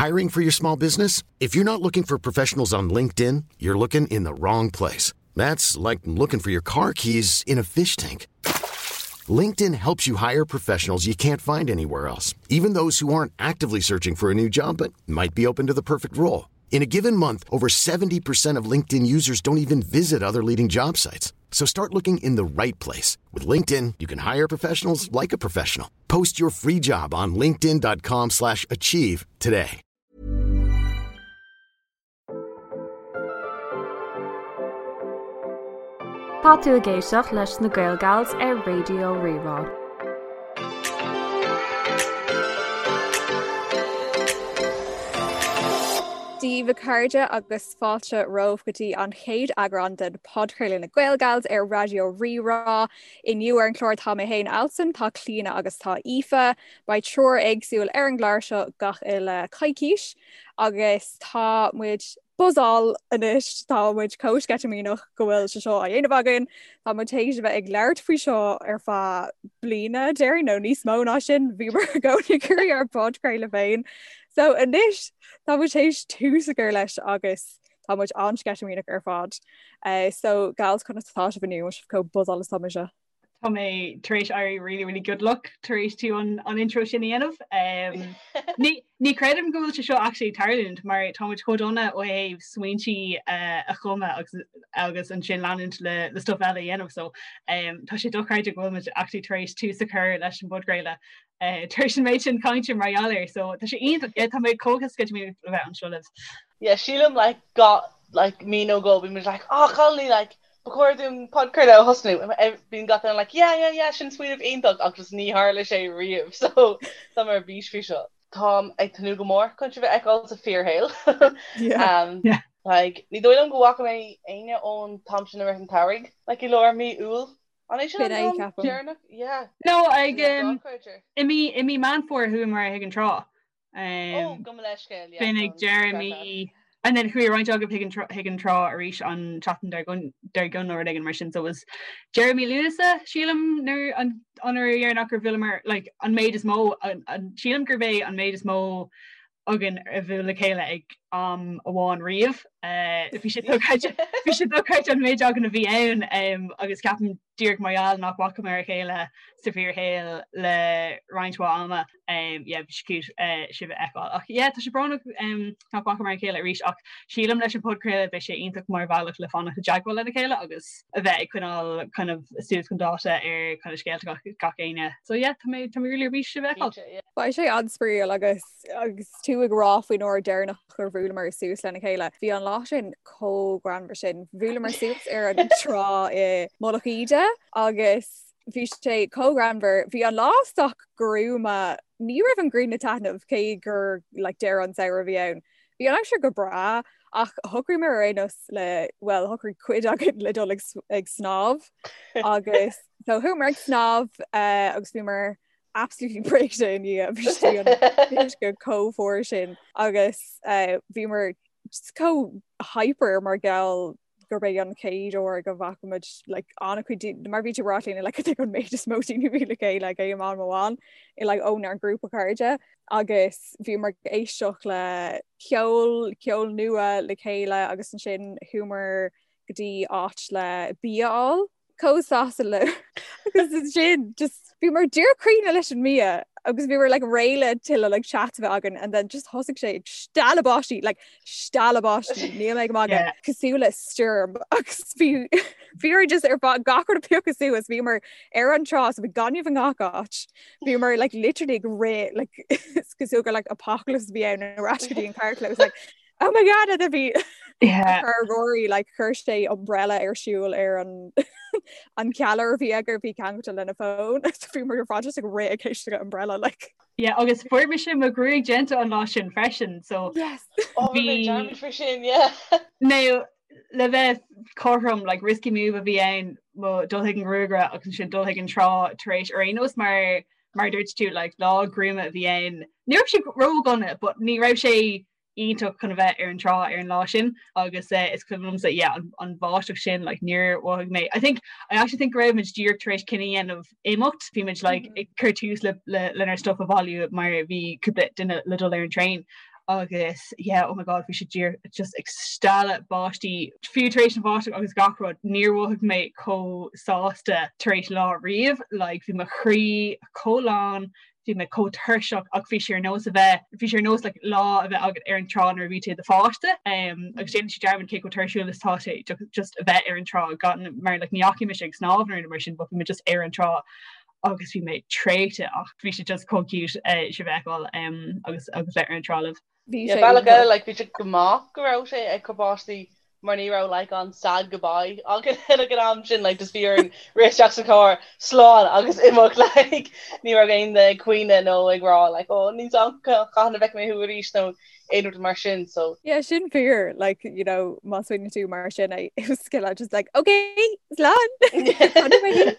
Hiring for your small business? If you're not looking for professionals on LinkedIn, you're looking in the wrong place. That's like looking for your car keys in a fish tank. LinkedIn helps you hire professionals you can't find anywhere else, even those who aren't actively searching for a new job but might be open to the perfect role. In a given month, over 70% of LinkedIn users don't even visit other leading job sites. So start looking in the right place. With LinkedIn, you can hire professionals like a professional. Post your free job on linkedin.com slash achieve today. Tá tú ag éisteacht leis na Gaelgals ar Raidió Rí-Rá. Dia daoibh a chairde agus fáilte romhaibh go dtí an chéad eagrán den podchraoladh na Gaelgals ar Raidió Rí-Rá. Inniu ar an chlár tá mé féin Alison, tá Clíona agus tá Aoife. Beidh triúr éagsúil ar an gclár seo gach uile coicís agus tá muid buzzáil anois, tá muid chomh sceitimíneach go bhfuil sé seo á dhéanamh againn. Tá muid théis a bheith ag labhairt faoi seo ar feadh bliana déarfainn nó níos mó ná sin, bhíomar i gcónaí ag iarraidh ár bpodchraoladh féin. So anois tá muid théis tús a chur leis agus tá muid an-sceitimíneach ar fad. Uh, so gals conas atá sibh inniu sibh chomh buzzáil is atá mise. Tá mé tar éis éirí really really good luck tar éis tú an, an intro sin a dhéanamh. Um, ní, ní creidim go bhfuil sé seo actually tarlúint mar tá muid chomh dona ó thaobh smaointí uh, a chumadh agus, agus ansin leanúint le, le stuff eile a dhéanamh so um, tá sé dochreidte go bhfuil muid actually tar éis tús a chur leis an bpodchraoladh uh, tar éis an méid sin cainte mar gheall air so tá sé iontach yeah, tá mé chomh sceitimíneach le bheith anseo libh. Yeah, sílim like got like mí nó dhó bhí muid like oh cailíní like Ba chóir dúinn podchraoladh a thosnú. Bíonn gach duine like yeah yeah yeah sin smaoineamh iontach ach just ní tharla sé riamh so tá mé ar bís faoi seo. Táim ag tnúth go mór chun sibh a fheiceáil sa fíorshaol. Yeah. Yeah. Like ní dóigh liom go bhfaca mé éinne ón t-am sin i rith an tsamhraidh, like i lár mí Iúil. An é sin B'in an é, t-am ceapaim. deireanach? Yeah. No, ag Sin dochreidte. i mí i mí Meán Fómhair chuamar chuig an trá. Ó, gabh mo leithscéal, yeah, B'in ag deireadh mí and then chuaigh roinnt agaibh chuig an chuig an trá arís an tseachtain dár dár gcionn nó rud éigin mar sin so it was deireadh mí Lúnasa sílim nuair an an uair dheireanach gur bhuaileamar like an méid is mó an an sílim gurb é an méid is mó againn a bhuail le chéile ag am amháin riamh. Bhí sé dochreidte bhí sé dochreidte an méid againn a bhí ann agus ceapaim díreach mar gheall nach bhfacamar a chéile sa bhfíorshaol le roinnt mhaith ama. Yeah, bhí sé cute sibh a fheiceáil. Ach yeah, tá sé brónach nach bhfacamar a chéile arís ach sílim leis an podchraoladh beidh sé iontach mar bhealach le fanacht i dteagmháil lena chéile agus a bheith ag coinneáil kind of suas chun dáta ar kind of scéalta gach gach éinne. So yeah, tá mé tá mé really ar bís sibh a fheiceáil. Cinnte, yeah. Beidh sé an-spraíúil agus agus tú ag rá faoin uair deireanach gur bhuaileamar suas lena chéile. Bhí an lá sin chomh greannmhar sin. Bhuaileamar suas ar an trá i Mullach Íde agus bhí sé chomh greannmhar. Bhí an lá sách gruama. Ní raibh an ghrian ag taitneamh cé gur like, deireadh an samhradh a bhí ann. Bhí an aimsir go breá ach shocraíomar ar aon nós le well shocraigh cuid againn le dul ag, ag snámh agus so chuamar ag snámh uh, agus bhíomar absolutely briste i ndiaidh bhí sé an uisce chomh fuar sin agus uh, bhíomar just chomh hyper mar gheall gurb é an chéad uair go bhfaca muid like, an-chuid mar bhí tú ag rá linn like, an méid is mó daoine a bhí le chéile ag aon am amháin i like, ónár ngrúpa cairde agus bhíomar ag éisteacht le ceol ceol nua le chéile agus ansin chuamar go dtí áit le bia a fháil chomh sásta le agus ansin just bhíomar díreach críochnaithe leis an mbia agus bhíomar like réidh le tuilleadh like chat a bheith againn and then just thosaigh sé ag stealladh báistí like stealladh báistí níl mé ag magadh Yeah. cosúil le stoirm agus bhí bhíomar just ar fad gach rud ag piocadh suas bhíomar ar an trá so bhí gaineamh i ngach áit bhíomar like literally ag rith like is cosúil gur like apocalypse a bhí ann ar ais go dtí an carrchlós like Oh my god a bhí Yeah. Chuir Rory like chuir sé umbrella ar siúl ar an an ceallaire a bhí aige a bhí ceangailte lena fón so bhíomar ar fad just ag rith ag éisteacht le umbrella like. Yeah, agus fuair mise mo ghruaig déanta an lá sin freisin, so Yes. Oh, bhí mé bhí dearmad faoi sin, yeah. Now, le bheith cothrom, like risky move a bhí ann mo dul chuig an ghruagaire agus ansin dul chuig an trá tar éis ar aon nós mar mar a dúirt tú like lá gruama a bhí ann. Ní raibh sé ródhona, but ní raibh sé iontach chun a bheith ar an trá ar an lá sin agus is cuimhin liomsa yeah an an bháisteach sin like níor mhothaigh mé I think I actually think go raibh muid díreach tar éis cinneadh a dhéanamh imeacht bhí muid like ag cur tús le le lenár stuff a bhailiú mar bhí cúpla duine le dul ar an traein. Agus yeah oh my god bhí sé díreach just ag stealladh báistí fiú tar éis an bháisteach agus gach rud níor mhothaigh mé chomh sásta tar éis lá riamh like bhí mo chroí chomh lán bhí mé chomh tuirseach ach bhí sé ar nós a bheith bhí sé ar nós like lá a bheith agat ar an trá nuair a bhí tú i do pháiste um, agus déanann sé dearmad cé chomh tuirsiúil is tá sé just a bheith ar an trá gan mar like ní dheachaigh mise ag snámh nó mar sin but bhí mé just ar an trá agus bhí mé traochta ach bhí sé just chomh cute eh, sibh a fheiceáil um, agus agus bheith ar an trá libh. Bhí sé bealach eile like bhí sé go maith go raibh sé ag cur báistí mar ní raibh like an sad goodbye againn ag an am sin like just bhí orainn rith isteach sa charr slán agus imeacht like ní raibh aon duine ag caoineadh nó ag rá like oh níl a fhios agam cathain a bhfeicfidh mé thú arís nó aon rud mar sin so Yeah sin fíor like you know má smaoiníonn tú mar sin é it was just like okay slán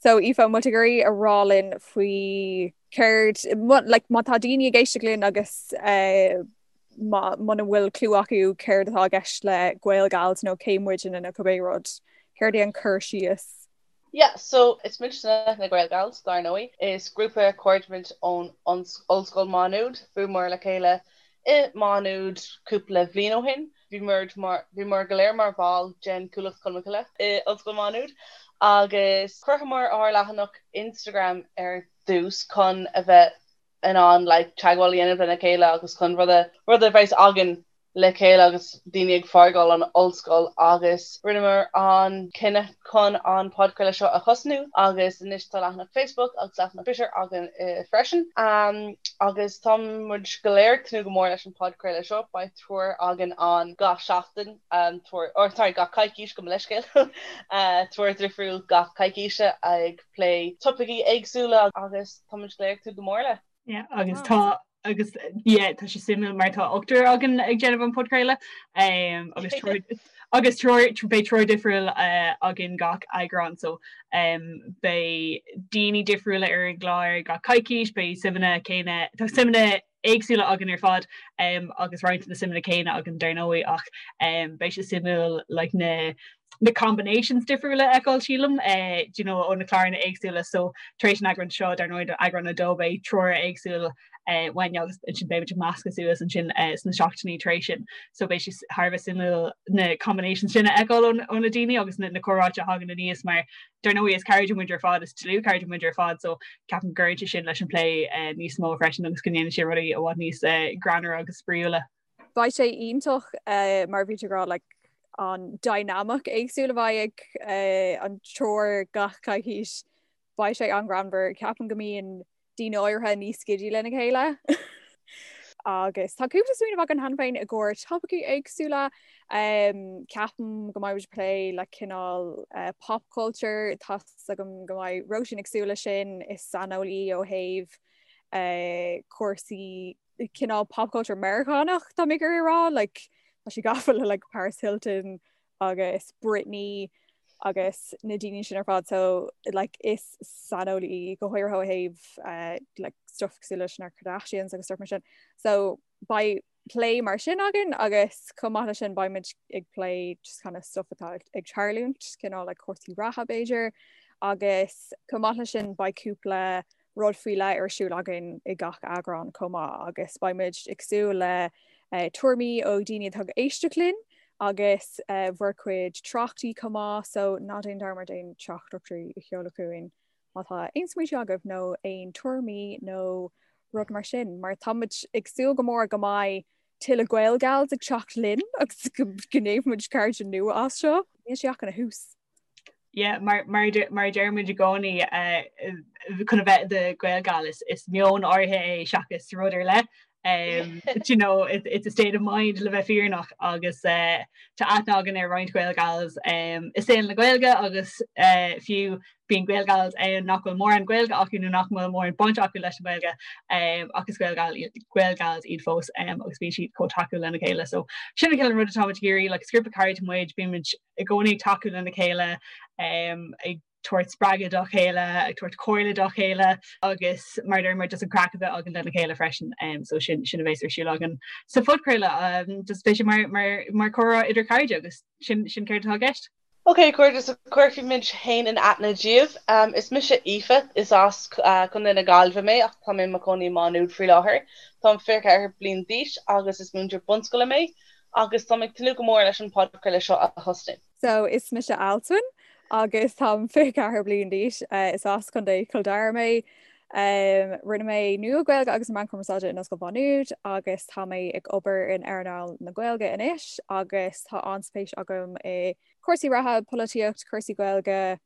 So Aoife, an bhfuil tú ag iarraidh a rá linn faoi céard, like, má tá daoine ag éisteacht linn agus eh, muna bhfuil clue acu céard atá i gceist le Gael Gals nó cé muidne nó cibé rud, céard é an cur síos? Yeah, so is muidne na Gael Gals, dar ndóigh. Is grúpa cairde muid ón Ollscoil Má Nuad. Bhuaileamar le chéile i Má Nuad cúpla bhliain ó shin. Bhí mar bhíomar go léir mar bhall den Chuallacht Cholmcille i Ollscoil Mhá Nuad agus chruthaíomar ár leathanach Instagram ar dtús chun a bheith in ann like teagmháil a dhéanamh lena chéile agus chun rud a rud a bheas againn le chéile agus daoine ag fágáil an ollscoil agus rinneamar an cinneadh chun an podchraoladh seo a thosnú agus anois tá leathanach Facebook agus leathanach Twitter againn freisin. Agus tá muid go léir ag tnúth go mór leis an podchraoladh seo. Beidh triúr againn ann gach seachtain, triúr, or sorry, gach coicís, gabh mo leithscéal, triúr difriúil gach coicíse ag plé topaicí éagsúla agus tá muid go léir ag tnúth go mór le. Yeah, agus tá agus yeah, tá sé suimiúil mar tá ochtar againn ag déanamh an podchraoladh um, agus triúr agus triúr beidh triúr difriúil uh, againn gach eagrán so um, beidh daoine difriúla ar an gclár gach coicís, beidh suimeanna céanna tá suimeanna éagsúla againn ar fad um, agus roinnt na suimeanna céanna againn dar ndóigh ach um, beidh sé suimiúil like, na na combinations difriúla a fheiceáil sílim eh, do you know, ó na cláranna éagsúla so tar éis an eagrán seo dar ndóigh eagrán 2 beidh triúr éagsúil eh, uainn agus ansin beidh muid ag meascadh suas ansin eh, sna seachtainí tar éis sin so beidh sé thar a bheith suimiúil na combinations sin a fheiceáil ó na daoine agus na, na comhráite a thagann aníos mar dar ndóigh is cairde muid ar fad is dlúthchairde muid ar fad so ceapaim go gcuireann sé sin leis an plé eh, níos mó freisin agus go ndéanann sé rudaí i bhfad níos eh, greannmhaire agus spraíúla. Beidh sé iontach mar bhí tú ag rá like an dynamic éagsúil a bheidh ag an triúr gach coicís. Beidh sé an-ghreannmhar. Ceapaim go mbíonn daoine áirithe níos giddy lena chéile. Agus tá cúpla smaoineamh againn cheana féin i gcomhair topaicí éagsúla. Ceapaim go mbeidh muid ag plé le cineál pop culture, tá's agam go mbeidh Róisín ag súil leis sin, is saineolaí ó thaobh cúrsaí cineál pop culture Meiriceánach tá mé ag iarraidh a rá like tá sí gafa le like Paris Hilton agus Britney agus na daoine sin ar fad so like is saineolaí go háirithe ó thaobh uh, like stuff cosúil leis na Kardashians agus stuff mar sin so beidh plé mar sin againn agus chomh maith leis sin beidh muid ag plé just kind of stuff atá ag tarlúint cineál like cúrsaí reatha b'fhéidir agus chomh maith leis sin beidh cúpla rud faoi leith ar siúl againn i gach eagrán chomh maith agus beidh muid ag súil le tuairimí ó dhaoine atá ag éisteacht linn agus bhur gcuid tráchtaí chomh maith so ná déan dearmad aon teachtaireachtaí a sheoladh chugainn má tá aon smaointe agaibh nó aon tuairimí nó rud mar sin mar tá muid ag súil go mór go mbeidh tuilleadh Gael Gals ag teacht linn agus go ndéanfaidh muid cairde nua as seo. Níl sé ach ina thús. Yeah, mar mar mar a deir muid i gcónaí eh, chun a bheith i do Gael Gal is is meon áirithe é seachas rud ar leith. Um, you know, it, it's a state of mind le bheith fírinneach agus uh, tá aithne againn ar roinnt Gael Gals um, i saol na Gaeilge agus uh, fiú bíonn Gael Gals ann nach bhfuil mórán Gaeilge acu nó nach bhfuil mórán baint acu leis an Ghaeilge um, ach is Gael Gal Gael Gals iad fós um, agus bíonn siad chomh tacúil lena chéile. So sin an cineál rud atá muid ag iarraidh, like, is grúpa cairde muid, bíonn muid i gcónaí ag tacú lena chéile, ag tabhairt spreagadh dá chéile, ag tabhairt comhairle dá chéile agus mar a deir muid just an craic a bheith againn lena chéile freisin. So sin sin a bheas ar siúl againn sa phodchraoladh. Just beidh sé mar mar mar comhrá idir cairde agus sin sin céard atá i gceist. Ok, a chairde, so cuirfidh muid féin in aithne daoibh. Is mise Aoife, is as Contae na Gaillimhe mé ach tá mé i mo chónaí i Má Nuad faoi láthair. Táim 24 bliain d'aois agus is múinteoir bunscoile mé agus táim ag tnúth go mór leis an podchraoladh seo a thosnú. So is mise Alswyn agus táim 24 bliain d'aois. Is as Contae Chill Dara mé. Rinne mé Nua-Ghaeilge agus na Meáin Chumarsáide in Ollscoil Mhá Nuad agus tá mé ag obair in earnáil na Gaeilge anois agus tá an-spéis agam i cúrsaí reatha, polaitíocht, cúrsaí Gaeilge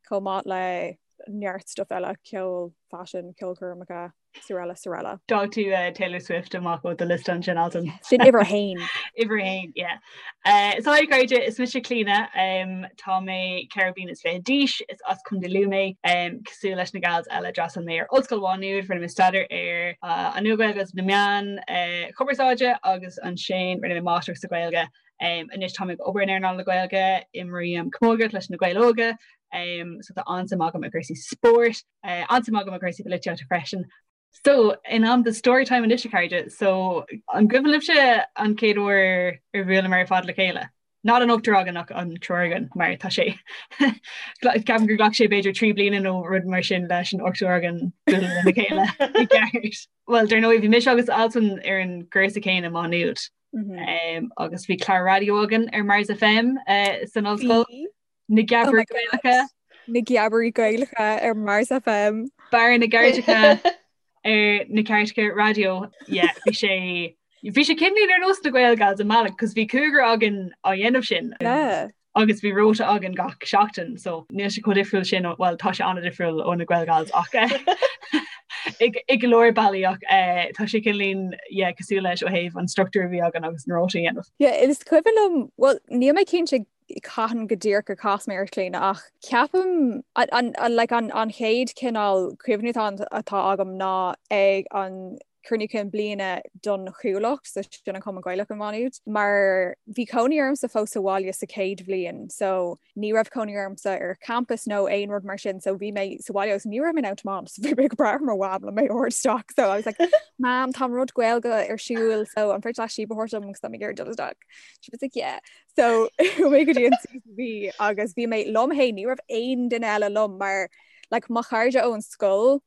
chomh maith le neart stuff eile, ceol, faisean, ceolchoirmeacha. Srl. Srl. D'fhág tú Taylor Swift amach ó do liosta ansin Alswyn. Sin uimhir a haon. Uimhir a haon, yeah. So hi a chairde, is mise Clíona, tá mé 24 bliana d'aois, is as Contae Lú mé. Cosúil leis na gals eile d'fhreastail mé ar Ollscoil Mhá Nuad, rinne mé staidéar ar an Nua-Ghaeilge agus na Meáin Chumarsáide agus ansin rinne mé Máistreacht sa Ghaeilge. Anois táim ag obair in earnáil na Gaeilge, imrím camógaíocht leis na Gaeil Óga, so tá an-suim agam i gcúrsaí spóirt. An-suim agam i gcúrsaí polaitíochta freisin. So, in am do storytime anois a chairde, so an gcuimhin libhse an chéad uair ar bhuaileamar ar fad le chéile? Not an ochtar againn ach an triúr againn mar tá sé ceapaim gur ghlac sé b'fhéidir 3 bliana nó rud mar sin leis an ochtar againn bualadh lena chéile i gceart. Well, dar ndóigh bhí mise agus Alswyn ar an gcúrsa céanna i Má Nuad. Mm -hmm. um, agus bhí clár raidió againn ar Mars FM uh, san ollscoil. Na Geabairí oh Gaelacha. Na Geabairí Gaelacha ar Mars FM. Barra na gCairteacha ar na cairteacha raidió. Yeah, bhí sé bhí sé cineál ar nós na Gael Gals i mbealach, cos bhí cúigear againn á dhéanamh sin. Yeah. Agus bhí rota againn gach seachtain, so níl sé chomh difriúil sin, well tá sé an-difriúil ó na Gael Gals ach i go leor bealaí ach eh, tá sé cineál yeah, cosúil leis ó thaobh an struchtúr a bhí againn agus an rota a dhéanamh. Yeah, is cuimhin liom, well níl mé cinnte cathain go díreach gur chas mé ort Clíona ach ceapaim an like an an chéad cineál cuimhne atá atá agam ná ag an cruinniú cinn bliana don Chuallacht so sin an Cumann Gaelach i Má Nuad mar bhí cónaí ormsa fós sa bhaile sa chéad bhliain so ní raibh cónaí ormsa ar campus nó aon rud mar sin so bhí mé sa bhaile agus ní raibh mé in ann tiomáint so bhí mé ag brath ar mo mham le mé a thabhairt isteach so I was like Mam tá rud Gaeilge ar siúl so an féidir leat síob a thabhairt dom agus tá mé ag iarraidh dul isteach. She was like yeah So chuaigh mé go dtí an CCB agus bhí mé liom féin ní raibh aon duine eile liom mar like, mo chairde ón scoil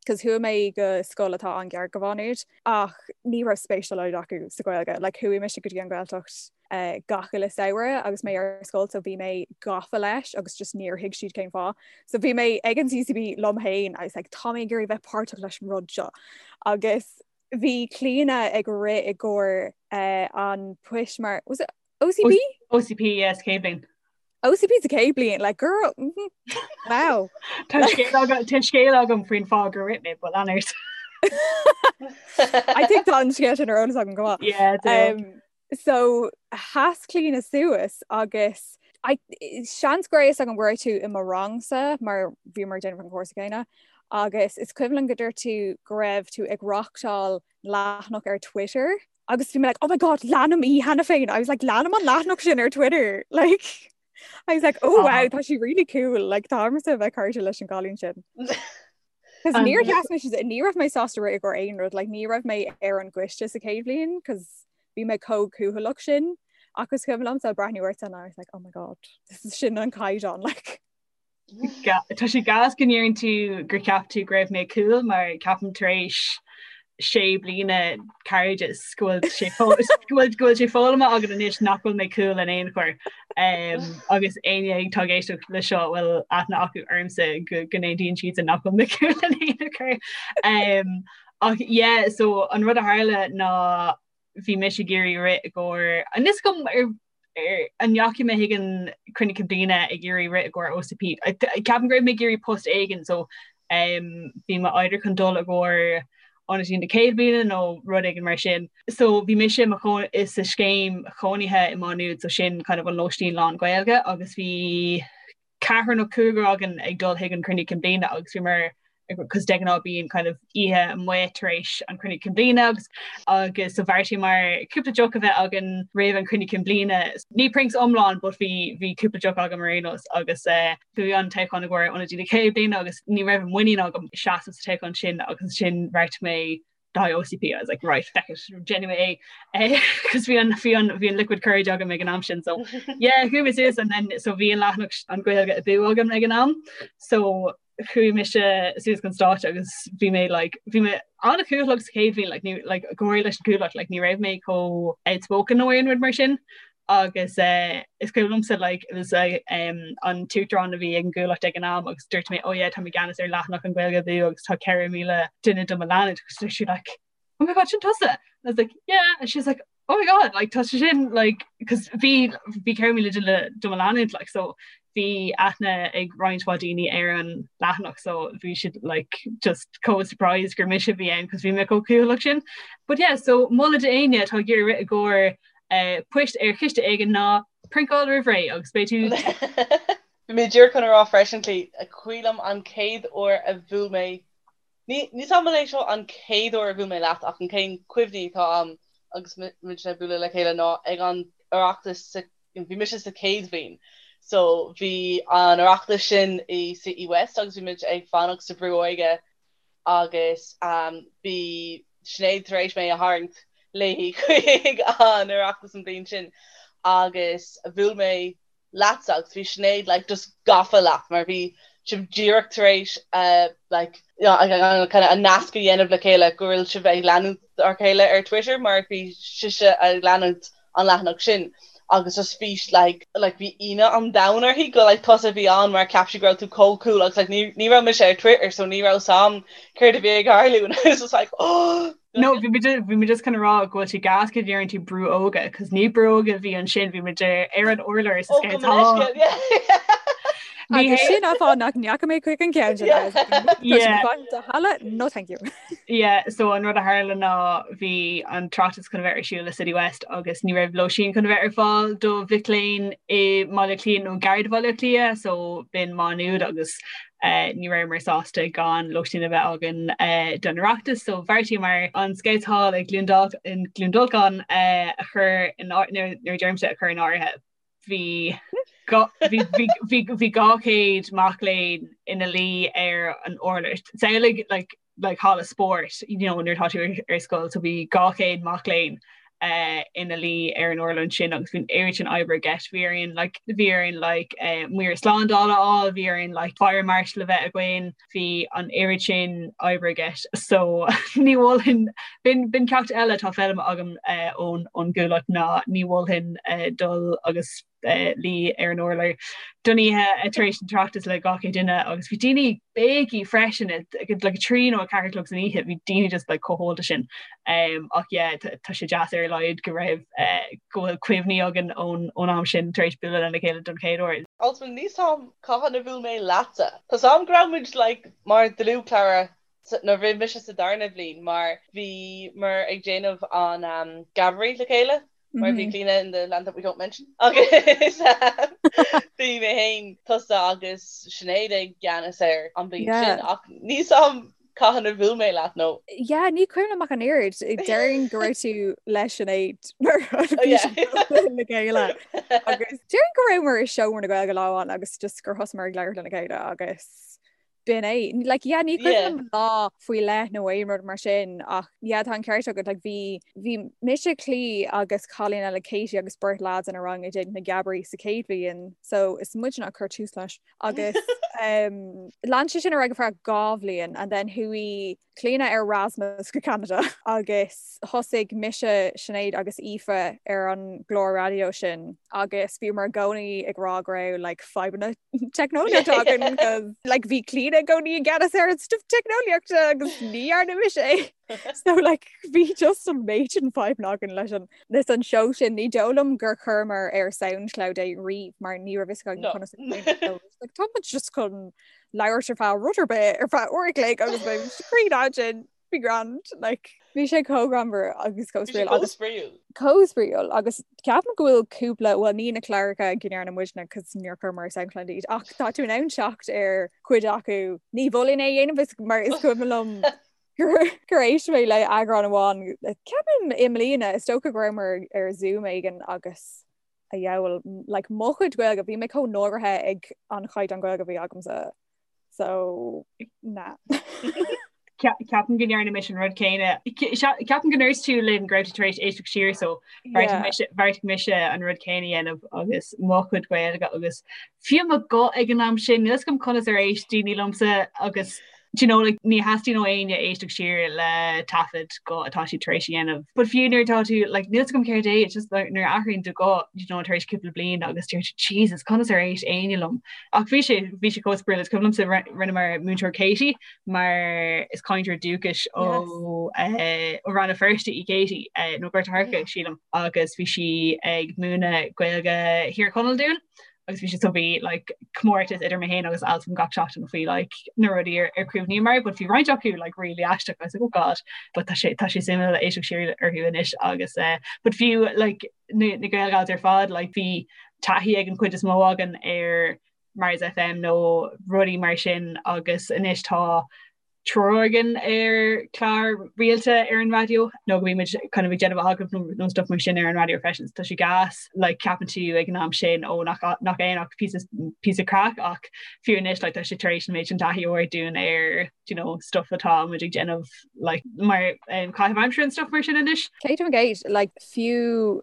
cos chuaigh mé go scoil atá an-ghar go Mhá Nuad ach ní raibh spéis dá laghad acu sa Ghaeilge. Like, chuaigh mise go dtí an Ghaeltacht uh, gach uile samhradh agus mé ar scoil so bhí mé gafa leis agus just níor thuig siad cén fáth. So bhí mé ag an CCB liom féin I was like, tá mé ag iarraidh bheith páirteach leis an rud seo. Agus Bhí Clíona ag rith i gcomhair an poist mar, was it OCP? OCP, yes, chéad bhliain. OCP sa chéad bhliain, like girl, mm -hmm. wow. Tá scéal agam faoin fáth gur rith mé, but lean ort. I think tá an scéal sin ar eolas agam go maith. Yeah, um, So sheas Clíona suas agus I, seans go raibh a fhios agam go raibh tú i mo rangsa mar bhíomar ag déanamh an cúrsa céanna agus is cuimhin liom go dúirt tú go raibh tú ag reachtáil leathanach ar Twitter agus bhí mé like oh my god leanaim í cheana féin I was like leanaim an leathanach sin ar Twitter like I was like oh wow tá sí really cool like táimse a bheith cairde leis an gcailín sin. Cos níor sheas mé ní raibh mé sásta rith i gcomhair aon rud, like, ní raibh mé ar an gcoiste sa chéad bhliain cos bhí mé chomh cúthaileach sin ach is cuimhin liomsa breathnú ort and I was like oh my god this is sin an caighdeán like. Tá sé gas go ndeireann tú gur cheap tú go raibh mé cool mar ceapaim tar éis sé bliana cairdeas go bhfuil sé go bhfuil sé foghlamtha agam anois nach bhfuil mé cool in aon chor um, agus éinne atá ag éisteacht le seo bhfuil aithne acu ormsa go go n-aontaíonn siad nach bhfuil mé cool in aon chor. Um, ach yeah, so an rud a tharla ná bhí mise ag iarraidh rith i gcomhair anois go ar an ndeachaigh mé chuig an cruinniú cinn bliana ag iarraidh rith i gcomhair OCP. Ceapaim go raibh mé ag iarraidh post éigin so um, bhí mé either chun dul i gcomhair ionadaí na céad bliana nó rud éigin mar sin. So bhí mise mo sa scéim chónaithe i Má Nuad so sin kind of an lóistín lán Gaeilge agus bhí ceathrar nó cúigear againn ag dul chuig an cruinniú cinn bliana agus bhíomar cos de ghnáth bíonn kind of oíche amuigh tar éis an cruinniú cinn bliana agus agus so bheartaíomar cúpla deoch a bheith againn roimh an cruinniú cinn bliana. Ní prinks iomlán but bhí bhí cúpla deoch agam ar aon nós agus eh, bhí an toghchán i gcomhair ionadaí na chéad bliana agus ní raibh muinín agam seasamh sa toghchán sin agus sin bheartaigh mé. Le haghaidh OCP I was like right feck it déanfaidh mé é cos bhí an bhí an bhí an liquid courage agam ag an am sin so yeah chuaigh mé suas and then so bhí an leathanach an Ghaeilge Abú agam ag an am so chuaigh mise suas chun stáitse agus bhí mé like bhí mé an-chúthaileach sa chéad bhliain like ní like go háirithe leis an gcúthaileacht like ní raibh mé chomh outspoken nó aon rud mar sin agus eh, is cuimhin liomsa like it was eh, um, an t-uachtarán a bhí ag an gCuallacht ag an am agus dúirt mé oh yeah tá mé i gceannas ar leathanach an Ghaeilge Abú agus tá 4,000 duine do mo leanúint agus dúirt sí like oh my god sin tusa and I was like yeah and she's like oh my god like tá sé sin like cos bhí bhí 4,000 duine do mo leanúint like so bhí aithne ag roinnt mhaith daoine ar an leathanach so bhí siad like just chomh surprised gur mise a bhí ann cos bhí mé chomh cúthaileach sin but yeah so moladh d'éinne atá ag iarraidh rith i gcomhair poist ar chiste éigin ná priontáil roimh ré agus beidh tú Bhí mé díreach chun a rá freisin, cuimhin liom an chéad uair a bhuail mé, ní níl 's a'm an é seo an chéad uair a bhuail mé leat ach an chéad cuimhní atá a'm agus muid ag bualadh le chéile ná ag an Oireachtas sa, bhí mise sa chéad bhliain so bhí an Oireachtas sin i Citywest agus bhí muid ag fanacht sa Bhrú Óige agus bhí Sinéad tar éis mé a tharraingt léi chuig an Oireachtas an bhliain sin agus bhuail mé leatsa agus bhí Sinéad like just gafa leat mar bhí sibh díreach tar éis like you know kind of an nasc a dhéanamh le chéile go bhfuil sibh ag leanúint a chéile ar Twitter mar bhí sise ag leanúint an leathanach sin agus just bhí like like bhí ionadh an domhain uirthi go like tusa a bhí ann mar cheap sí go raibh tú chomh cool agus like ní ní raibh mise ar Twitter so ní raibh 's a'm céard a bhí ag tarlú and I was just like oh No bhí muid bhí muid just chun a rá go bhfuil sé gas go ndeireann tú brú óige cos ní brú óige a bhí ansin bhí muid ar an urlár sa Oh, go minic, yeah. Agus sin an fáth nach ndeachaigh mé chuig an ceann sin. Yeah. Halla no thank you. Yeah, so an rud a tharla ná bhí an tOireachtas chun a bheith ar siúl i City West agus ní raibh lóistín chun a bheith ar fáil do mhic léinn i mBaile Átha Cliath nó gar do Bhaile Átha Cliath, so b'in Má Nuad agus eh, ní rabhamar sásta gan lóistín a bheith againn eh, don Oireachtas, so bheartaíomar an Scouts Hall i gCluain Dol- in Cluain Dolcáin eh, a chur in áir- nuair nuair a deirimse a chur in áirithe. Bhí bhí 200 mac léinn ina luí ar an urlár. Samhlaigh like like halla spóirt you know nuair atá tú ar scoil so bhí 200 mac léinn uh, ina luí ar an urlár sin agus bhí an oiread sin oibre i gceist bhí orainn like bhí orainn like uh, maor slándála a fháil bhí orainn like fire marshal a bheith againn bhí an oiread sin oibre i gceist so ní mholfainn b'in b'in ceacht eile atá foghlamtha agam uh, ón ón gCuallacht ná ní mholfainn uh, dul agus uh, luí ar an urlár don oíche uh, tar éis an tOireachtas le 200 duine agus bhí daoine béicí freisin at like 3 nó 4 a chlog san oíche bhí daoine just like chomh hólta sin um, ach yeah tá sé deas ar a laghad go raibh uh, go bhfuil cuimhní againn ón ón am sin tar éis bualadh lena chéile don chéad uair. Also níl 's a'm cathain a bhuail mé leatsa. Tá 's a'm go raibh muid like mar dlúthchara nuair a bhí mise sa darna bhliain mar bhíomar ag déanamh an um, Geabaire le chéile mar bhí Clíona in the land that we don't mention agus bhí mé féin tusa agus Sinéad i gceannas air an bhliain sin ach níl 's a'm Cathain a bhuail mé leat nó? Yeah, ní cuimhin liom ach an oiread. Déarfainn go raibh tú le Sinéad mar bhí siad le chéile. Agus déarfainn go rabhamar i seomra na Gaeilge lá amháin agus just gur thosaíomar ag labhairt lena chéile agus b'in é. Like, yeah, ní cuimhin liom lá faoi leith nó aon rud mar sin ach yeah, tá an ceart agat like, bhí bhí mise Clí agus cailín eile Katie agus beirt lads inár rang ag déanamh na Geabairí sa chéad bhliain so is muidne a chuir tús leis. agus lean sé sin ar aghaidh ar feadh 2 bhliain and then chuaigh Clíona ar Erasmus go Canada agus thosaigh mise, Sinéad agus Aoife ar an gclár raidió sin agus bhíomar i gcónaí ag rá go raibh like fadhbanna teicneolaíochta againn cos like bhí Clíona i gcónaí i gceannas ar an stuff teicneolaíochta agus ní dhearna mise é. So like bhí just an méid sin fadhbanna againn leis an leis an seó sin ní dóigh liom gur chuireamar ar Soundcloud é riamh mar ní raibh fhios againn conas like, tá muid just chun labhairt ar feadh rud ar bith ar feadh uair a chloig agus beidh screen ansin be grand like bhí sé chomh greannmhar agus chomh spraíúil agus chomh spraíúil agus ceapaim go bhfuil cúpla bhuel ní na cláracha go ndearna muidne cos níor chuireamar ar Soundcloud iad ach tá tú in ann teacht ar chuid acu ní mholfainn é a dhéanamh is mar is cuimhin liom gur éist mé le eagrán amháin ceapaim i mbliana is dócha go rabhamar ar Zoom éigin agus a dheabhail like mo chuid Gaeilge bhí mé chomh náirithe ag an chaighdeán Gaeilge a bhí agamsa so na. Ceapaim go ndearna mise an rud céanna. Ceapaim go ndúirt tú linn go raibh tú tar éis éisteacht siar so bheartaigh mise an rud céanna a dhéanamh agus mo chuid Gaeilge agus fiú mo ghuth ag an am sin, níl 'fhios agam conas ar éist daoine liomsa agus do you know like ní theastaíonn ó éinne éisteacht siar le taifead guth atá siad tar éis a dhéanamh. But fiú nuair atá tú like níl 'fhios agam céard é, it's just like nuair a athraíonn do ghuth you know tar éis cúpla bliain agus deir tú Jesus conas ar éist éinne liom. Ach bhí sé bhí sé chomh spraíúil is cuimhin liomsa rinneamar múinteoir Katie mar is cainteoir dúchais ó eh, ó Rann na Feirste í Katie eh, nó Gort a' Choirce sílim agus bhí sí ag múineadh Gaeilge Thír Chonaill dúinn agus bhí sé so bhí like comórtas idir mé féin agus Altan gach seachtain faoi like na rudaí ar ar chuimhníomar but bhí roinnt acu like really aisteach I was like oh god but tá sé tá sé suimiúil éisteacht siar orthu anois agus eh, but fiú like na na Gaelgals ar fad like bhí taithí ag an chuid is mó againn ar Mars FM nó rudaí mar sin agus anois tá triúr againn ar chlár rialta ar an raidió nó go mbímid kind of ag déanamh agallamh nó stuff mar sin ar an raidió freisin. Tá sé gas like ceapann tú ag an am sin ó nach nach aon ach píosa píosa craic ach fiú anois like tá sé tar éis an méid sin taithí a thabhairt dúinn ar you know stuff atá muid ag déanamh like mar um, caitheamh aimsire and stuff mar sin anois. 100% like fiú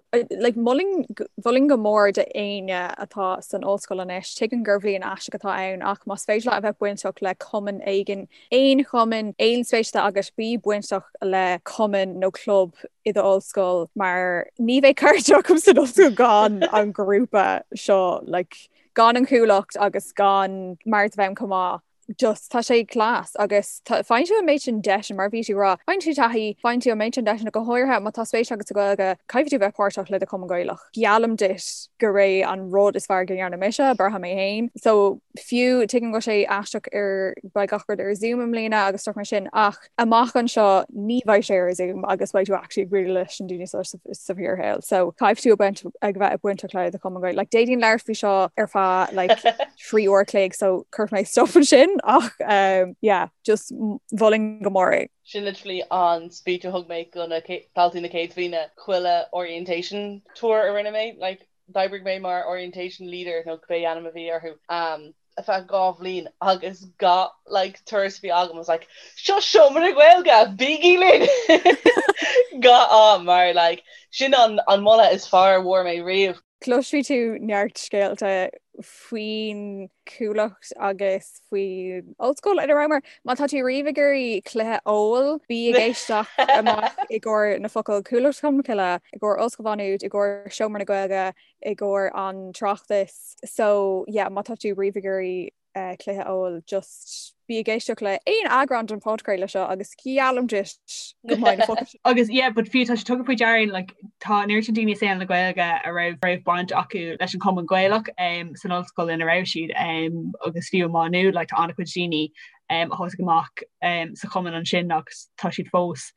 like mholfainn mholfainn go mór d'éinne atá san ollscoil anois, tuigim gur bhliain aisteach atá ann ach más féidir leat a bheith bainteach le cumann éigin, aon chumann, aon spéis atá agat, bí bainteach le cumann nó club i d'ollscoil mar ní bheidh cairde agam san ollscoil gan an grúpa seo like gan an Chuallacht agus gan Mars FM chomh maith. just tá sé class agus faigheann tú an méid sin deiseanna mar bhí tú ag rá, faigheann tú taithí, faigheann tú an méid sin deiseanna go háirithe má tá spéis agat sa Ghaeilge, caithfidh tú bheith páirteach le do chumann Gaelach. Geallaim duit gur é an rud is fearr go ndearna mise, b'fhearr mé féin. So fiú tuigim go bhfuil sé aisteach ar beidh gach rud ar Zoom i mbliana agus stuff mar sin ach amach anseo ní bheidh sé ar Zoom agus beidh tú actually ag bualadh leis na daoine seo sa bhfíorshaol. So caithfidh tú ag bheith bainteach le do chumann Gaeilge. Like d'fhéadfainn labhairt faoi seo ar feadh like 3 uair a chloig so cuirfidh mé stop ansin ach um, yeah, just mholfainn go mór é. Sin literally an speech a thug mé go na daltaí na céad bhliana chuile orientation tour a rinne mé, like d'oibrigh mé mar orientation leader nó cibé ainm a bhí orthu um, ar feadh 2 bhliain agus gach like turas a bhí agam I was like seo seomra na Gaeilge bígí linn gach am mar like sin an an moladh is fearr a bhfuair mé riamh. Cloisfidh tú neart scéalta faoin Chuallacht agus faoin ollscoil ina rabhamar. Má tá tú riamh ag iarraidh cluiche óil, bí ag éisteacht amach i gcomhair na focail Cuallacht Cholmcille, i gcomhair Ollscoil Mhá Nuad, i gcomhair Seomra na Gaeilge, i gcomhair an tOireachtas. So yeah, má tá tú riamh ag iarraidh cluiche óil just bí ag éisteacht le aon eagrán den phodchraoladh seo agus geallaim duit go mbeidh na focail sin. Agus yeah, but fiú tá sé tugtha faoi deara like, tá an oiread sin daoine i saol na Gaeilge a raibh raibh baint acu leis an Chumann Gaelach um, san ollscoil ina raibh siad um, agus fiú i Má Nuad like, tá an-chuid daoine um, a thosaigh amach um, sa chumann ansin agus tá siad fós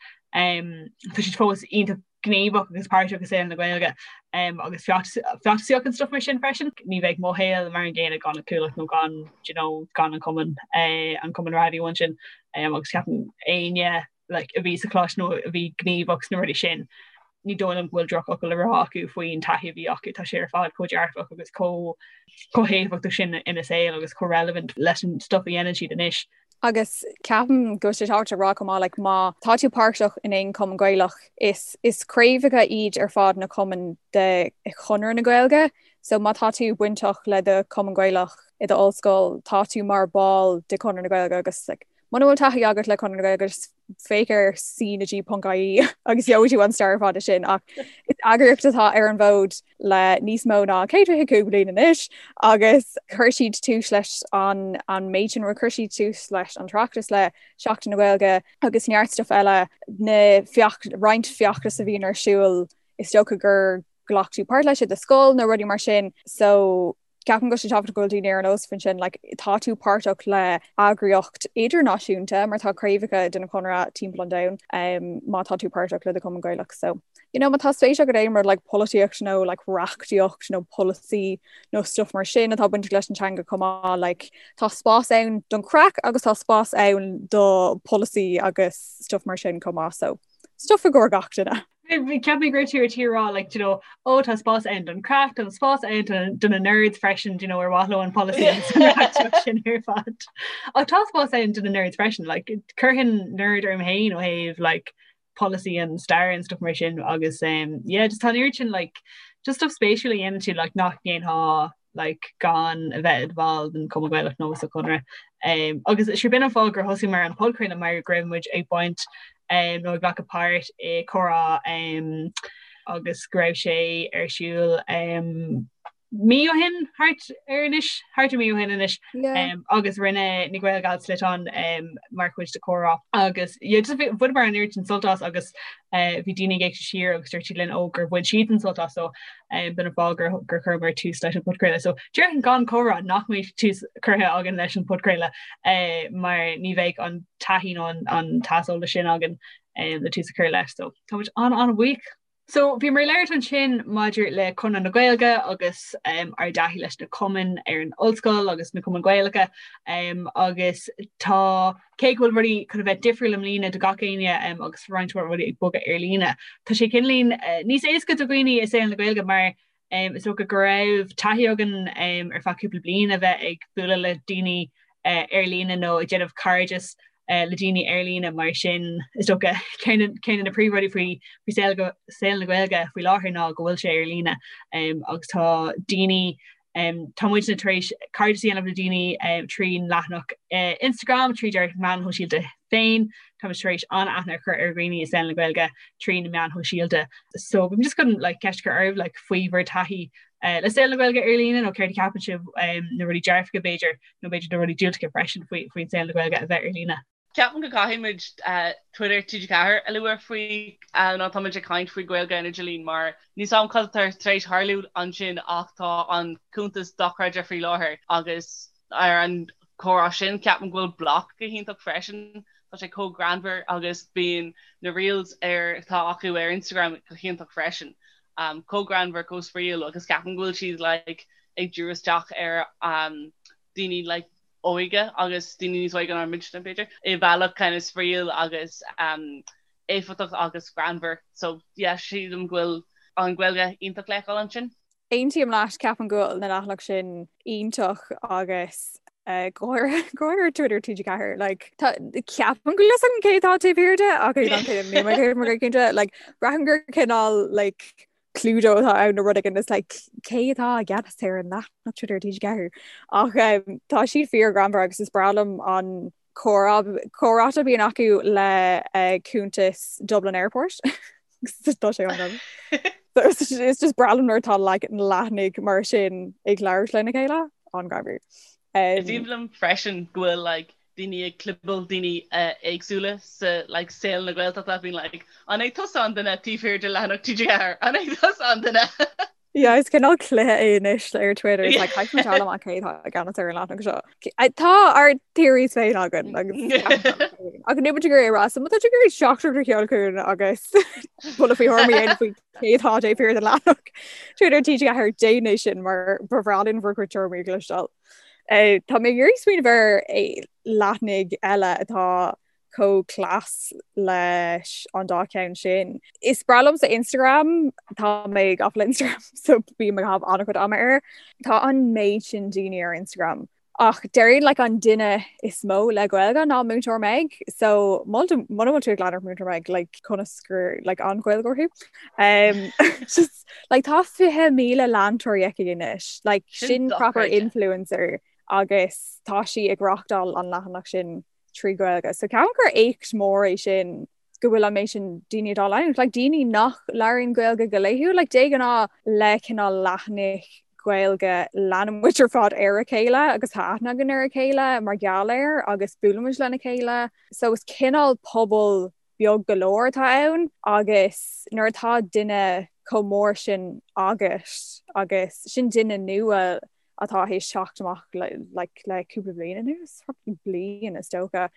um, tá siad fós iontach gníomhach agus páirteach i saol na Gaeilge agus feachtasaíocht and stuff mar sin freisin. Ní bheadh mo shaol mar an gcéanna gan an Chuallacht nó gan you know, gan an cumann eh, an cumann raidió ansin agus ceapaim éinne like, a bhí sa choláiste nó a bhí gníomhach sna rudaí sin ní dóigh liom go bhfuil drochfhocal le rá acu faoin taithí a bhí acu tá sé ar fad chomh dearfach agus chomh chomh héifeachtach sin ina saol agus chomh relevant leis an stuff a dhéanann siad anois. Agus ceapaim go bhfuil sé tábhachtach a rá chomh maith like má tá tú páirteach in aon chumann Gaelach is is craobhacha iad ar fad na cumainn de Chonradh na Gaeilge so má tá tú bainteach le do chumann Gaelach i do ollscoil tá tú mar ball de Chonradh na Gaeilge agus like muna bhfuil taithí agat le Conradh na Gaeilge just féach ar cnag.ie agus gheobhaidh tú an stair ar fad sin ach is eagraíocht atá ar an bhfód le níos mó ná 125 bliain anois agus chuir siad tús leis an an méid sin chuir siad tús leis an tOireachtas le Seachtain na Gaeilge agus neart stuff eile na feach roinnt feachtas a bhíonn ar siúl is dócha gur ghlac tú páirt leis i do scoil nó rudaí mar sin so Ceapaim go bhfuil sé tábhachtach go bhfuil daoine ar an eolas faoin sin, like, tá tú páirteach le eagraíocht idirnáisiúnta mar tá craobhacha den Chonradh timpeall an domhain um, má tá tú páirteach le do Chumann Gaelach. So, you know, má tá spéis agat aon rud like polaitíocht nó like reachtaíocht nó polasaí nó stuff mar sin atá bainteach leis an teanga chomh maith, like, tá spás ann don chraic agus tá spás ann do polasaí agus stuff mar sin chomh maith. So, stuff i gcomhair gach duine. Cheap mé go raibh tú ar tí rá like, you know, ó tá spás ann don craic, tá spás ann do na nerds freisin, you know, ar mhaith leo an polasaí sin ar fad. Ach tá spás ann do na nerds freisin, like, chuirfinn nerd orm féin ó thaobh like, polasaí and stair and stuff mar sin agus um, yeah, just tá an oiread sin like, just stuff spéisiúil a dhéanann tú like, nach ndéanfá like, gan a bheith i do bhall den Chumann Gaelach nó sa Chonradh. Um, agus sé b'in an fáth gur thosaíomar an podchraoladh mar go raibh muid ag baint um, nó ag glacadh páirt i comhrá um, agus go raibh sé ar siúl um, mí ó shin thart ar anois thart ar mí ó shin anois um, agus rinne na Gael Gals sliotán um, mar chuid de comhrá agus yeah, just bhaineamar an oiread sin sult as agus uh, bhí daoine ag éisteacht siar agus dúirt siad linn ó gur bhain siad an sult as so um, b'in an fáth gur, gur chuireamar tús leis an podchraoladh. So déarfainn gan comhrá nach mbeadh tús curtha againn leis an podchraoladh uh, mar ní bheadh an taithí nó an, an t-aiseolas sin againn um, le tús a chur leis. So táimid an an-bhuíoch. So bhíomar ag labhairt ansin maidir le Conradh na Gaeilge agus um, ár dtaithí leis na cumainn ar an ollscoil agus na cumainn Gaelacha um, agus tá cé go bhfuil rudaí chun a bheith difriúil i mbliana do gach éinne um, agus roinnt mhaith rudaí ag bogadh ar líne. Tá sé cineáilín uh, níos éasca do dhaoine i saol na Gaeilge mar um, is dócha go raibh taithí againn um, ar feadh cúpla bliain a bheith ag bualadh le daoine uh, ar líne nó ag déanamh cairdeas le daoine ar líne mar sin is dócha ceann de na príomhrudaí faoi faoi saol saol na Gaeilge faoi láthair ná go bhfuil sé ar líne um, agus tá daoine um, tá muidne tar éis cairdeas a dhéanamh le daoine um, trín leathanach uh, Instagram tríd ár meáin shóisialta féin Tá muid tar éis an-aithne a chur ar dhaoine i saol na Gaeilge trí na meáin shóisialta. So bím just chun like, ceist a chur oraibh like, faoi bhur taithí uh, le saol na Gaeilge ar líne nó céard a cheapann sibh um, na rudaí dearfacha b'fhéidir nó b'fhéidir na rudaí diúltacha freisin faoi faoin saol na Gaeilge a bheith ar líne. Ceapaim go gcaithfidh muid uh, Twitter TG4 a lua faoi uh, nó tá muid ag caint faoi Gaeilge ar an idirlíon mar níl a fhios agam cad atá tar éis tarlú ansin ach tá an cuntas dochreidte faoi láthair agus ar an comhrá sin ceapaim go bhfuil Bloc go hiontach freisin. Tá sé chomh greannmhar agus bíonn na reels ar atá acu ar Instagram go hiontach freisin. Um, chomh greannmhar, chomh spraíúil agus ceapaim go bhfuil siad like, ag díriú isteach ar um, daoine like, óige agus daoine níos óige ná muidne b'fhéidir i bhealach kind of spraíúil agus um, éifeachtach agus greannmhar. So yeah, sílim go bhfuil an Ghaeilge iontach le feiceáil ansin. Aontaím leat, ceapaim go bhfuil na leathanaigh sin iontach agus go háirithe Twitter TG4 like tá ceapaim go bhfuil fhios agam cé atá taobh thiar de ach níl mé cé mar cinnte like braithim gur cineál like Cluedo atá ann nó rud éigin is like cé atá i gceannas ar an leathanach Twitter TG4 ach um, tá siad fíorghreannmhar agus is breá liom an comhráite a bhíonn acu le cuntas Dublin Airport. Tá sé an It's just breá liom nuair atá like na leathanaigh mar sin ag labhairt lena chéile an-ghreannmhar. Is aoibhinn liom freisin go bhfuil like daoine ag clibeáil daoine éagsúla sa like saol na Gaeltachta bíonn like an é tusa an duine taobh thiar de leathanach TG4? An é tusa an duine? Yeah, is cineál cluiche é anois ar Twitter is like caithfidh muid a fháil amach cé atá i gceannas ar an leathanach seo. Tá ár theories féin againn agus ach níl muid ag iarraidh a rá, so má tá tú ag iarraidh teachtaireacht a sheoladh chugainn agus buille faoi thuairim a dhéanamh faoi cé atá taobh thiar den leathanach Twitter TG4 déan é sin mar ba bhreá linn bhur gcuid tuairimí a chloisteáil. Tá mé ag iarraidh smaoineamh ar leathanaigh eile atá chomh class leis an dá cheann sin. Is breá liomsa Instagram, tá mé gafa le Instagram so bím ag caitheamh an-chuid ama air. Tá an méid sin daoine ar Instagram. Ach déarfainn like an duine is mó le Gaeilge ná Múinteoir Meg, so muna bhfuil tú ag leanacht Múinteoir Meg like conas gur like an-Ghaeilgeoir thú. Um, just like tá 20,000 leantóirí aici anois, like sin proper influencer agus tá sí ag reáchtáil an leathanach sin trí Ghaeilge. So ceapaim gur éacht mór é sin go bhfuil an méid sin daoine dá leanúint. Like daoine nach labhraíonn Gaeilge go laethúil, like de ghnáth le cineál leathanaigh Gaeilge leanann muid ar fad ar a chéile agus tá aithne againn ar a chéile mar gheall air agus buaileann muid lena chéile. So is cineál pobal beag go leor atá ann agus nuair atá duine chomh mór sin agat agus sin duine nua atá théis teacht amach like le cúpla bliain anuas, probably bliain is dócha,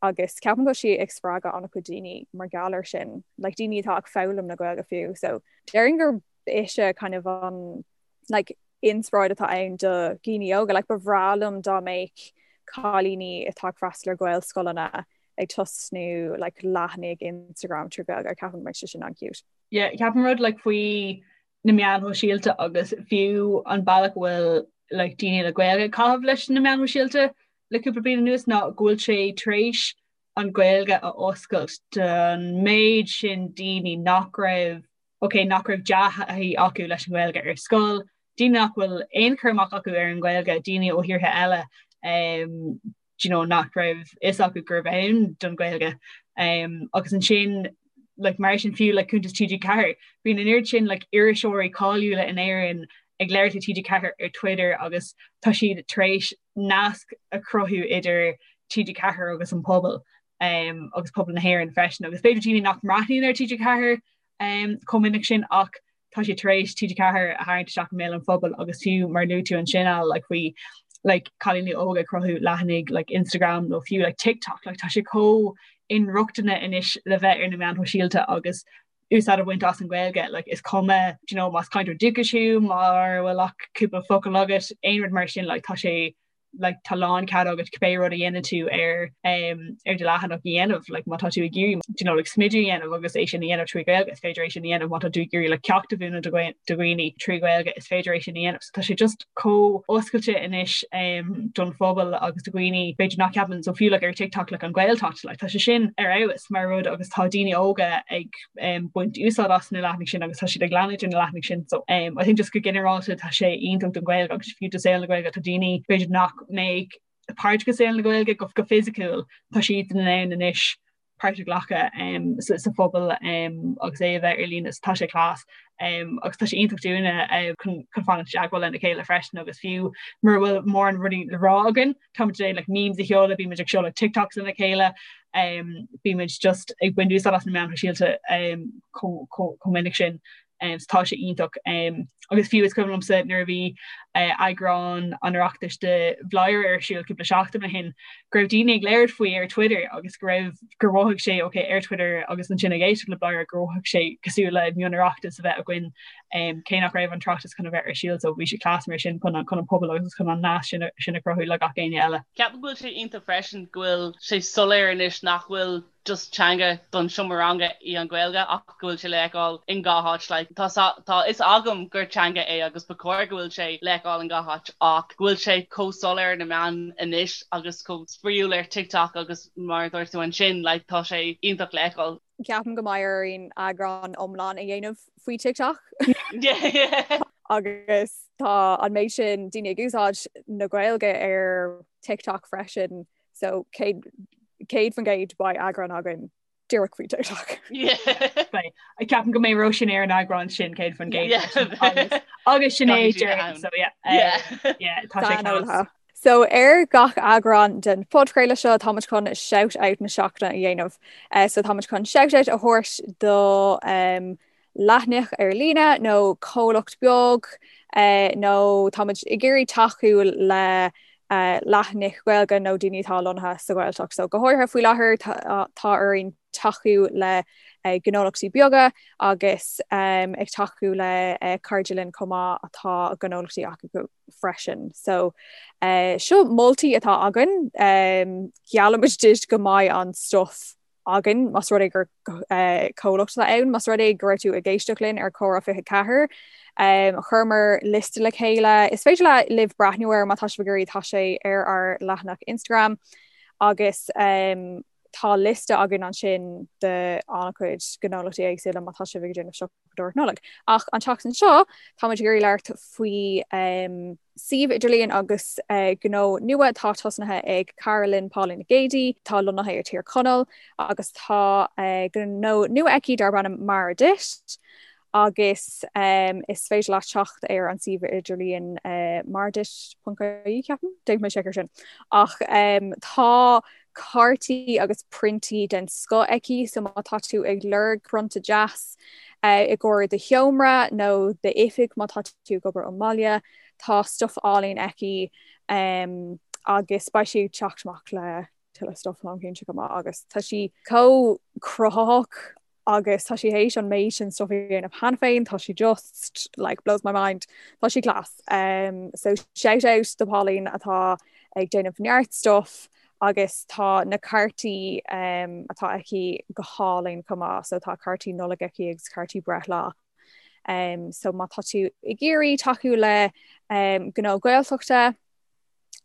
agus ceapaim go bhfuil sí ag spreagadh an-chuid daoine mar gheall air sin, like daoine atá ag foghlaim na Gaeilge fiú. So déarfainn gur ise kind of an like inspioráid atá ann do dhaoine óga, like ba bhreá liom dá mbeadh cailíní atá ag freastal ar Ghaelscoileanna ag tosnú like leathanaigh Instagram trí Ghaeilge, ceapaim go mbeadh sé sin an-cute. Yeah, ceapaim rud like faoi na meáin shóisialta agus fiú an bealach a bhfuil like daoine le Gaeilge ag caitheamh leis na meáin shóisialta le cúpla bliain anuas ná go bhfuil sé tar éis an Ghaeilge a oscailt don méid sin daoine nach raibh ok nach raibh dea-thaithí acu leis an nGaeilge ar scoil, daoine nach bhfuil aon chur amach acu ar an nGaeilge, daoine ó thíortha eile um, you know, nach raibh fhios acu gurbh ann don Ghaeilge. Um, agus ansin like, mar sin fiú like, cuntas TG4, bíonn an oiread sin like, iriseoirí cáiliúla in Éirinn ag labhairt le TG4 ar Twitter agus tá siad tar éis nasc a chruthú idir TG4 agus an pobal um, agus pobal na hÉireann freisin agus b'fhéidir daoine nach mbreathnaíonn ar TG4 um, chomh minic sin ach tá sé tar éis TG4 a tharraingt isteach i mbéal an phobail agus fiú mar luaigh tú ansin Al like faoi like cailíní óga ag cruthú leathanaigh like Instagram nó fiú like TikTok like tá sé chomh inrochtana anois le bheith ar na meáin shóisialta agus úsáid a bhaint as an Ghaeilge like is cuma do you know más cainteoir dúchais thú mura bhfuil ach cúpla focal agat aon rud mar sin like tá sé like tá lán cead agat cibé rud a dhéanann tú ar um, ar do leathanach a dhéanamh like má tá tú ag iarraidh you know, like smideadh a dhéanamh agus é sin a dhéanamh trí Ghaeilge is féidir é sin a dhéanamh má tá tú ag iarraidh like ceacht a mhúineadh do dhaoine trí Ghaeilge is féidir é sin a dhéanamh so tá sé just chomh oscailte anois um, don phobal agus do dhaoine b'fhéidir nach ceapann so fiú like ar TikTok like an Ghaeltacht like tá sé sin ar fheabhas mar rud agus tá daoine óga ag um, baint úsáid as na leathanaigh sin agus tá siad ag leanúint ar na leathanaigh sin so um, I think just go ginearálta tá sé iontach don Ghaeilge agus fiú do saol na Gaeilge tá daoine b'fhéidir nach mbeadh páirteach i saol na Gaeilge go, go fisiciúil tá siad in ann anois páirt a ghlacadh um, sa, sa phobal um, agus é a bheith ar líne tá sé class um, agus tá sé iontach dúinne uh, chun, chun fanacht i dteagmháil lena chéile freisin agus fiú mura bhfuil mórán rudaí le rá againn táimid ag like memes a sheoladh, bímid ag seoladh TikToks lena chéile, um, bímid just ag baint úsáid as na meáin shóisialta um, chomh minic sin. Um, so tá sé iontach um, agus fiú is cuimhin liomsa nuair a bhí uh, eagrán an Oireachtais de Bhladhaire ar siúl cúpla seachtain ó shin go raibh daoine ag labhairt faoi ar Twitter agus go raibh gur mhothaigh sé ok ar Twitter agus ansin ag éisteacht le Bladhaire gur mhothaigh sé cosúil le mion-Oireachtas a bheith againn um, cé nach raibh an tOireachtas chun a bheith ar siúl so bhí sé class mar sin chun chun an pobal agus chun an nasc sin, sin a chruthú le gach éinne eile. Ceapaim go bhfuil sé iontach freisin go bhfuil sé soiléir anois nach bhfuil just teanga don seomra ranga í an Ghaeilge ach go bhfuil sé le feiceáil in gach áit like tá tá fhios agam gur teanga é agus ba chóir go bhfuil sé le feiceáil in gach áit ach go bhfuil sé chomh soiléir ar na meáin anois agus chomh spraíúil ar TikTok agus mar a dúirt tú ansin like tá sé iontach le feiceáil. Ceapaim go mbeidh orainn eagrán iomlán a dhéanamh faoi TikTok. Agus tá an méid sin daoine ag úsáid na Gaeilge ar TikTok freisin, so 100% beidh eagrán againn díreach faoi TikTok. Beidh. Ceapaim go mbeidh Róisín ar an eagrán sin 100% agus Sinéad so yeah. Yeah, tá sé class. So ar gach eagrán den phodchraoladh seo táimid chun shout out na seachtaine a dhéanamh. So táimid chun shout out a thabhairt do um, leathanach ar líne nó comhlacht beag uh, nó táimid ag iarraidh tacú le uh, leathanaigh Ghaeilge nó daoine atá lonnaithe sa Ghaeltacht. So go háirithe faoi láthair tá, tá orainn tacú le uh, gnólachtaí beaga agus um, ag tacú le uh, cairde linn chomh maith atá gnólachtaí acu freisin. So eh, seo moltaí atá againn, um, geallaimid duit go mbeidh an stuff againn más rud é gur eh, comhlacht atá ann, más rud é go raibh tú ag éisteacht linn ar Comhrá 24. Um, chuireamar liosta le chéile. Is féidir le libh breathnú air má tá sibh ag iarraidh tá sé ar ár leathanach Instagram agus um, tá liosta againn ansin de an-chuid gnólachtaí éagsúla má tá sibh ag déanamh siopadóireacht Nollag. Ach an tseachtain seo táimid ag iarraidh labhairt faoi um, suíomh idirlíon agus uh, gnó nua atá tosnaithe ag cara linn Pauline Nic Géadaigh, tá lonnaithe ar Tír Chonaill agus tá uh, gnó nua aici darb ainm Mar Duit agus um, is féidir leat teacht ar an suíomh idirlíon uh, marduit.ie ceapaim, déanfaidh mé seic ar sin. Ach um, tá cártaí agus priontaí den scoth aici, so má tá tú ag lorg prionta deas uh, i gcomhair do sheomra nó d'oifig má tá tú ag obair ón mbaile, tá stuff álainn aici um, agus beidh sí ag teacht amach le tuilleadh stuff táim cinnte go maith agus tá sí chomh cruthaitheach agus tá sí théis an méid sin stuff a dhéanamh cheana féin, tá sí just like blows my mind, tá sí class. Um, so shout out do Pauline atá ag déanamh neart stuff. Agus tá na cártaí atá aici go hálainn chomh maith, so tá cártaí Nollag aici agus cártaí breithlá. So má tá tú ag iarraidh tacú le gnó Gaeltachta,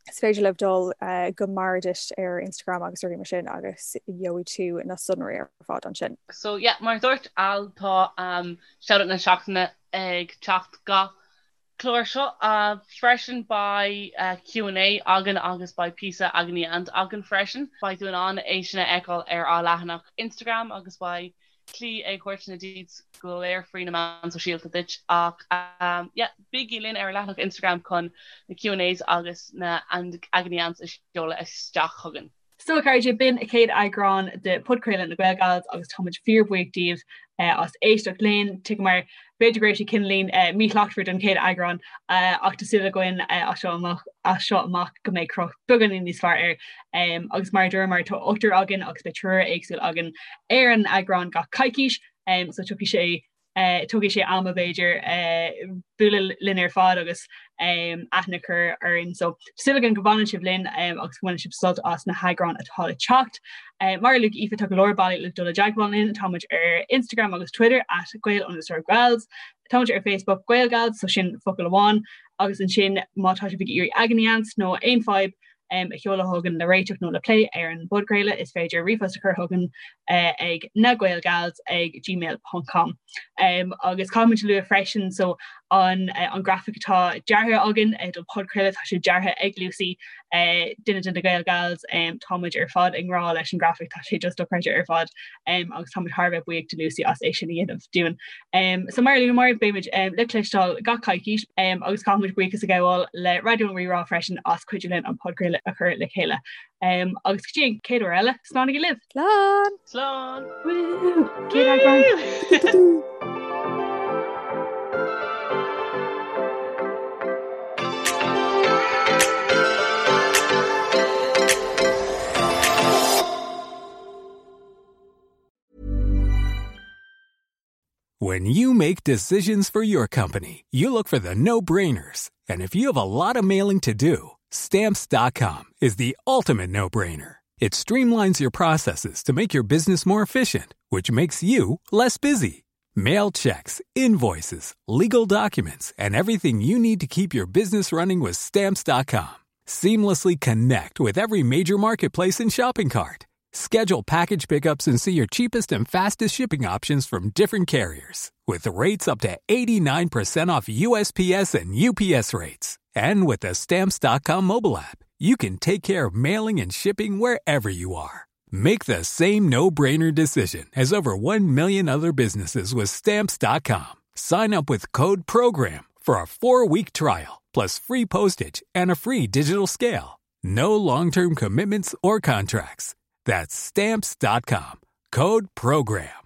is féidir libh dul go Meredith ar Instagram agus rudaí mar sin agus gheobhaidh tú na sonraí ar fad ansin. So yeah, mar a dúirt Al, tá Shoutout na Seachtaine ag teacht gach clár seo freisin. Beidh Q and A againn agus beidh píosa Agony Aunt againn freisin. Beidh tú in ann é sin a fheiceáil ar ár leathanach Instagram agus beidh Clí ag thabhairt na deets go léir faoi na meáin sóisialta duit ach yeah bígí linn ar ár leathanach Instagram chun na Q and A's agus na Agony Aunts a sheoladh isteach chugainn. So a chairde, b'in an chéad eagrán de Podchraoladh na GaelGals agus táimid fíorbhuíoch díobh as éisteacht linn. Tuigim mar b'fhéidir go raibh sé cineáilín míshlachtmhar don chéad eagrán ach tá súil againn as seo amach as seo amach go mbeidh cruth beagáinín níos fearr air. Agus mar a dúramar tá ochtar againn agus beidh triúr éagsúil againn ar an eagrán gach coicís so tiocfaidh sé tógfaidh sé ama b'fhéidir bualadh linn ar fad agus aithne a chur orainn. So súil againn go bhfanann sibh linn agus go mbaineann sibh sult as na heagráin atá le teacht. Mar a luaigh Aoife tá go leor bealaí le dul i dteagmháil linn, táimid ar Instagram agus Twitter at Gael underscore Gals, táimid ar Facebook GaelGals, so sin focal amháin, agus ansin má tá sibh ag iarraidh agony aunts nó aon fadhb a sheoladh chugainn le réiteach nó le plé ar an bpodchraoladh, is féidir ríomhphost a chur chugainn ag nagaelgals ag gmail ponc com. Agus caithfimid a lua freisin so an an grafaic atá deartha againn don podchraoladh, tá sé deartha ag Lucy, duine de na GaelGals, táimid ar fad i ngrá leis an grafaic, tá sé just dochreidte ar fad agus táimid thar a bheith buíoch de Lucy as é sin a dhéanamh dúinn. So mar a luamar, beimid le cloisteáil gach coicís agus caithfimid buíochas a ghabháil le Raidió an Rí-Rá freisin as cuidiú linn an podchraoladh a chur le chéile. Agus go dtí an chéad uair eile, slánaigí libh! Slán! Slán! Woo! Céad eagrán! When you make decisions for your company, you look for the no-brainers. And if you have a lot of mailing to do, stamps.com is the ultimate no-brainer. It streamlines your processes to make your business more efficient, which makes you less busy. Mail checks, invoices, legal documents, and everything you need to keep your business running with stamps.com. Seamlessly connect with every major marketplace and shopping cart. Schedule package pickups and see your cheapest and fastest shipping options from different carriers. With rates up to 89% off USPS and UPS rates. And with the Stamps.com mobile app, you can take care of mailing and shipping wherever you are. Make the same no-brainer decision as over 1 million other businesses with Stamps.com. Sign up with code PROGRAM for a four-week trial, plus free postage and a free digital scale. No long-term commitments or contracts. That's Stamps.com. Code PROGRAM.